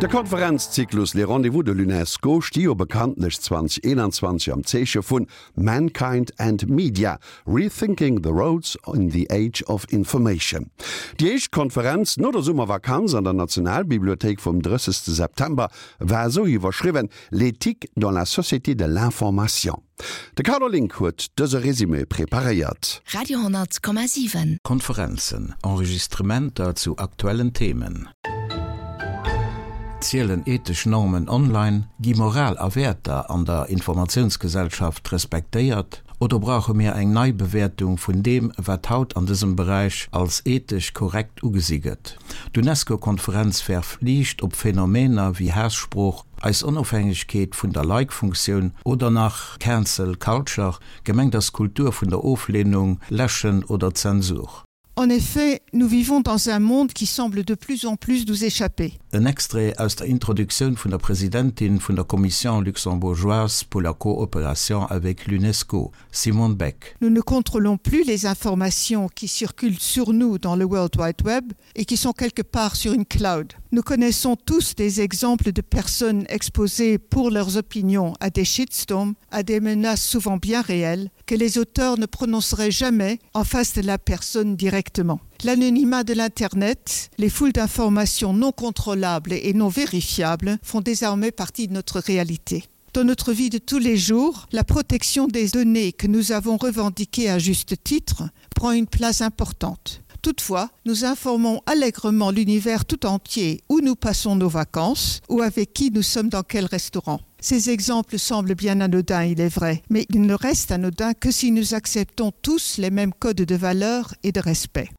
De Konferenzzyklus Les Rendez-vous de l'UNESCO sti jo bekanntlech 2021 am Zeeche vun Mankind and Media, Rethinking the Roads in the Age of Information. Déi éischt Konferenz no der Summervakanz an der Nationalbibliothéik vum 30 September war esou iwwerschriwwen, L'éthique dans la société de l'information. De Carlo Link huet dëse Résumé preparéiert. Radio 10,7. Konferenzen, Enregistrementer zu aktuellen Themen. Zielen ethesch Normen online? Gi Moral a Wäerter an der Informatiounsgesellschaft respektéiert? Oder brauche mir eng Neibewäertung vun deem, wat haut an dësem Beräich als ethesch korrekt ugesi gëtt? D'UNESCO-Konferenz werft Liicht op Phänomener wéi Haassprooch, eis Onofhängegkeet vun der Like-Funktioun oder nach Cancel Culture, gemengt ass d'Kultur vun der Ofleenung, Läschen oder Zensur. En effet, nous vivons dans un monde qui semble de plus en plus nous échapper. En Extrait aus der Introduktioun vun der Presidentin vun der Commission luxembourgeoise pour la coopération avec l'UNESCO, Simone Beck. Nous ne contrôlons plus les informations qui circulent sur nous dans le World Wide Web et qui sont quelque part sur une cloud. Nous connaissons tous des exemples de personnes exposées pour leurs opinions à des shitstorms, à des menaces souvent bien réelles que les auteurs ne prononceraient jamais en face de la personne directement. L'anonymat de l'internet, les foules d'informations non contrôlables et non vérifiables font désormais partie de notre réalité. Dans notre vie de tous les jours, la protection des données que nous avons revendiquées à juste titre prend une place importante. Toutefois, nous informons allègrement l'univers tout entier où nous passons nos vacances ou avec qui nous sommes dans quel restaurant. Ces exemples semblent bien anodins, il est vrai, mais ils ne restent anodins que si nous acceptons tous les mêmes codes de valeur et de respect.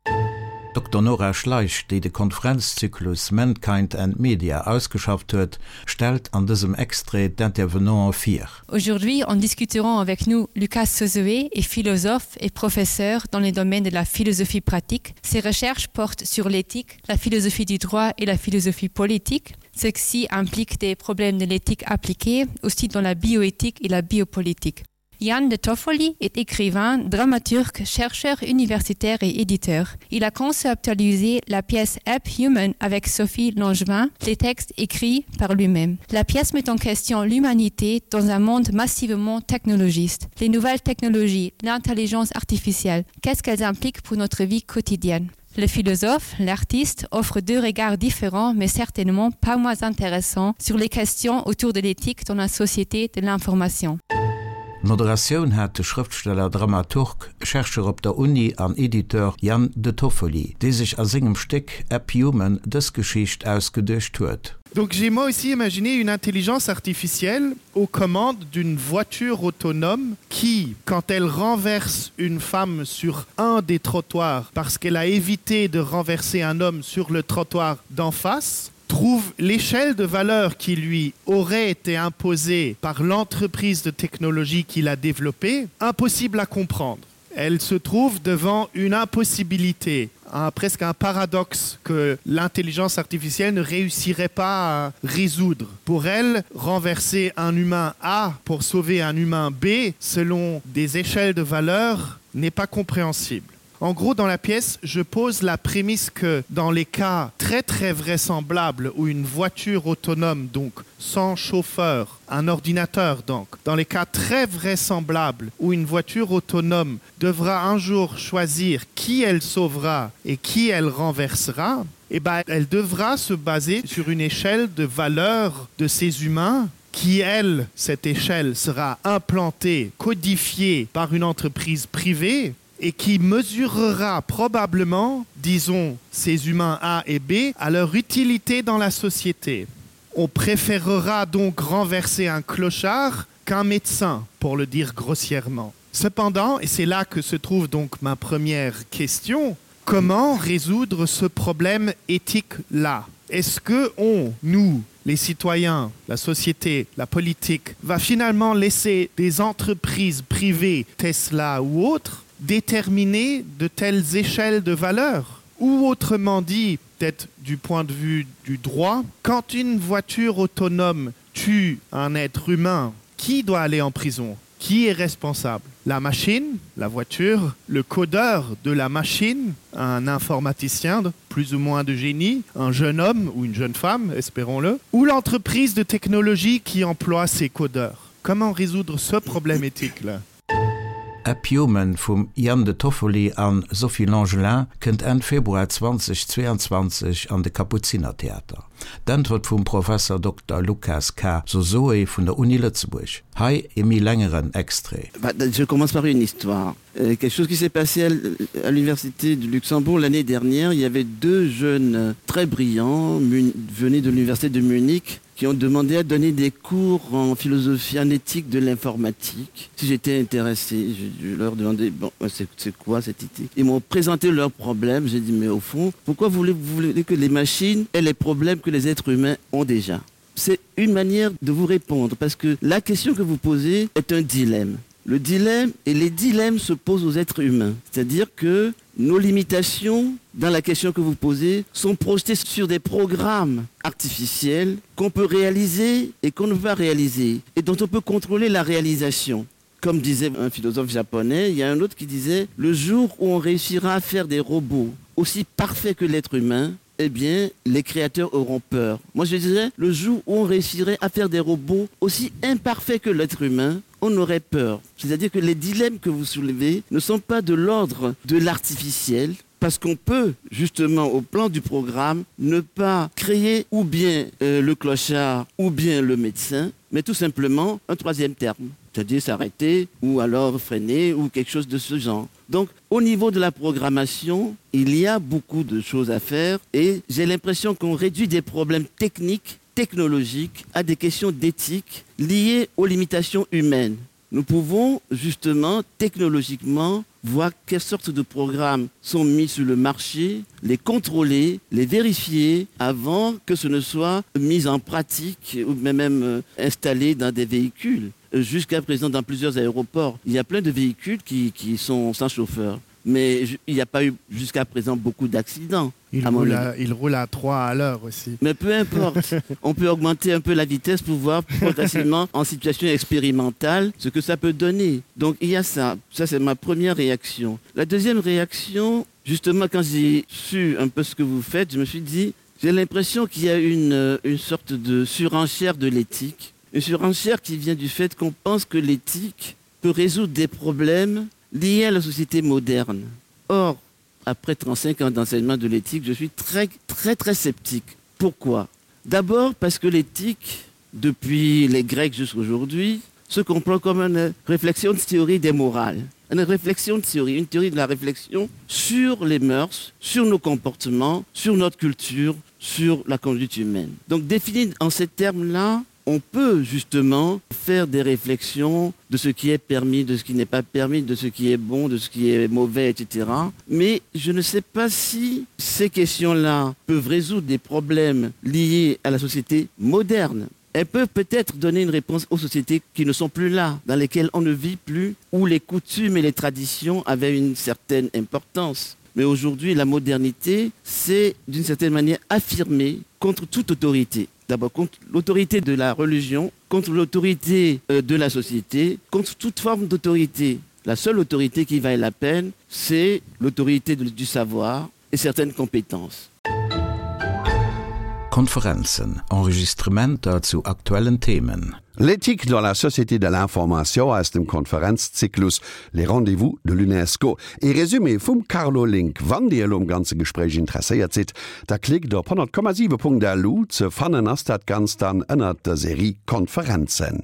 D'Dokter Nora Schleich, déi de Konferenzzyklus Mankind and Media ausgeschafft huet, stellt an dësem Extrait d'Intervenanten vir. Aujourd'hui, en discuterons avec nous Lucas Sozoé est philosophe et professeur dans les domaines de la philosophie pratique. Ses recherches portent sur l'éthique, la philosophie du droit et la philosophie politique. Ceci implique des problèmes de l'éthique appliquée, aussi dans la bioéthique et la biopolitique. Yann de Toffoli est écrivain, dramaturge, chercheur universitaire et éditeur. Il a conceptualisé la pièce App Human avec Sophie Langevin, les textes écrits par lui-même. La pièce met en question l'humanité dans un monde massivement technologiste. Les nouvelles technologies, l'intelligence artificielle, qu'est-ce qu'elles impliquent pour notre vie quotidienne? Le philosophe, l'artiste offre deux regards différents mais certainement pas moins intéressants sur les questions autour de l'éthique dans la société de l'information. D'Moderatioun hat de Schrëftsteller, Dramaturg, Chercheur op der Uni an Editeur Yann De Toffoli, dee sech a sengem Stéck App Human dës Geschicht ausgeduecht huet. Donc j'ai moi aussi imaginé une intelligence artificielle aux commandes d'une voiture autonome qui, quand elle renverse une femme sur un des trottoirs parce qu'elle a évité de renverser un homme sur le trottoir d'en face, trouve l'échelle de valeur qui lui aurait été imposée par l'entreprise de technologie qu'il a développée impossible à comprendre. Elle se trouve devant une impossibilité, un, presque un paradoxe que l'intelligence artificielle ne réussirait pas à résoudre. Pour elle, renverser un humain A pour sauver un humain B selon des échelles de valeur n'est pas compréhensible. En gros, dans la pièce, je pose la prémisse que dans les cas très très vraisemblables où une voiture autonome, donc sans chauffeur, un ordinateur donc, dans les cas très vraisemblables où une voiture autonome devra un jour choisir qui elle sauvera et qui elle renversera, eh ben, elle devra se baser sur une échelle de valeur de ces humains qui elle, cette échelle sera implantée, codifiée par une entreprise privée et qui mesurera probablement, disons, ces humains A et B à leur utilité dans la société. On préférera donc renverser un clochard qu'un médecin, pour le dire grossièrement. Cependant, et c'est là que se trouve donc ma première question, comment résoudre ce problème éthique-là Est-ce que on, nous, les citoyens, la société, la politique, va finalement laisser des entreprises privées, Tesla ou autres, déterminer de telles échelles de valeur Ou autrement dit, peut-être du point de vue du droit, quand une voiture autonome tue un être humain, qui doit aller en prison? Qui est responsable? La machine, la voiture, le codeur de la machine, un informaticien plus ou moins de génie, un jeune homme ou une jeune femme, espérons-le, ou l'entreprise de technologie qui emploie ces codeurs. Comment résoudre ce problème éthique là? App Human vum Ian De Toffoli a Sophie Langelin kënnt Enn Februar 2022 an de Kapuzinertheater. D'Äntwert vum Professer Dokter Lukas K. Sosoe vun der Uni Lëtzebuerg. Hei e méi längeren Extrait. Je commence par une histoire. Euh, quelque chose qui s'est passé à l'université de Luxembourg l'année dernière, il y avait deux jeunes très brillants venus de l'université de Munich qui ont demandé à donner des cours en philosophie en éthique de l'informatique. Si j'étais intéressé, je, je leur demandais bon, c'est quoi cette éthique Ils m'ont présenté leurs problèmes. J'ai dit mais au fond, pourquoi voulez-vous voulez que les machines aient les problèmes que les êtres humains ont déjà C'est une manière de vous répondre parce que la question que vous posez est un dilemme. Le dilemme et les dilemmes se posent aux êtres humains. C'est-à-dire que nos limitations dans la question que vous posez sont projetées sur des programmes artificiels qu'on peut réaliser et qu'on ne va réaliser et dont on peut contrôler la réalisation. Comme disait un philosophe japonais, il y a un autre qui disait le jour où on réussira à faire des robots aussi parfaits que l'être humain, eh bien les créateurs auront peur. Moi je dirais le jour où on réussirait à faire des robots aussi imparfaits que l'être humain, on aurait peur. C'est-à-dire que les dilemmes que vous soulevez ne sont pas de l'ordre de l'artificiel, parce qu'on peut justement au plan du programme ne pas créer ou bien euh, le clochard ou bien le médecin, mais tout simplement un troisième terme, c'est-à-dire s'arrêter ou alors freiner ou quelque chose de ce genre. Donc au niveau de la programmation, il y a beaucoup de choses à faire et j'ai l'impression qu'on réduit des problèmes techniques, technologiques à des questions d'éthique liées aux limitations humaines. Nous pouvons justement technologiquement voir quelles sortes de programmes sont mis sur le marché, les contrôler, les vérifier avant que ce ne soit mis en pratique ou même euh, installé dans des véhicules. Jusqu'à présent dans plusieurs aéroports, il y a plein de véhicules qui, qui sont sans chauffeur mais il n'y a pas eu jusqu'à présent beaucoup d'accidents. Il, roule à, il roule à 3 à l'heure aussi. Mais peu importe, on peut augmenter un peu la vitesse pour voir progressivement en situation expérimentale ce que ça peut donner. Donc il y a ça, ça c'est ma première réaction. La deuxième réaction, justement quand j'ai su un peu ce que vous faites, je me suis dit j'ai l'impression qu'il y a une, une sorte de surenchère de l'éthique, une surenchère qui vient du fait qu'on pense que l'éthique peut résoudre des problèmes liés à la société moderne. Or, après 35 ans d'enseignement de l'éthique, je suis très très très sceptique. Pourquoi D'abord parce que l'éthique, depuis les Grecs jusqu'aujourd'hui, se comprend comme une réflexion de théorie des morales, une réflexion de théorie, une théorie de la réflexion sur les mœurs, sur nos comportements, sur notre culture, sur la conduite humaine. Donc défini en ces termes-là, on peut justement faire des réflexions de ce qui est permis, de ce qui n'est pas permis, de ce qui est bon, de ce qui est mauvais, etc. Mais je ne sais pas si ces questions-là peuvent résoudre des problèmes liés à la société moderne. Elles peuvent peut-être donner une réponse aux sociétés qui ne sont plus là, dans lesquelles on ne vit plus, où les coutumes et les traditions avaient une certaine importance. Mais aujourd'hui, la modernité, c'est d'une certaine manière affirmée contre toute autorité d'abord contre l'autorité de la religion, contre l'autorité euh, de la société, contre toute forme d'autorité. La seule autorité qui vaille la peine, c'est l'autorité du savoir et certaines compétences. Konferenzen, Enregistrementer zu aktuellen Themen. L'éthique dans la société de l'information aus dem Konferenzzyklus Les Rendez-vous de l'UNESCO. Ee Resumé vum Carlo Link. Wann Dir elo um ganze Gespréich interesséiert sidd, da klickt op 100,7.lu. Ze fannen ass dat Ganzt dann ënnert der Serie Konferenzen.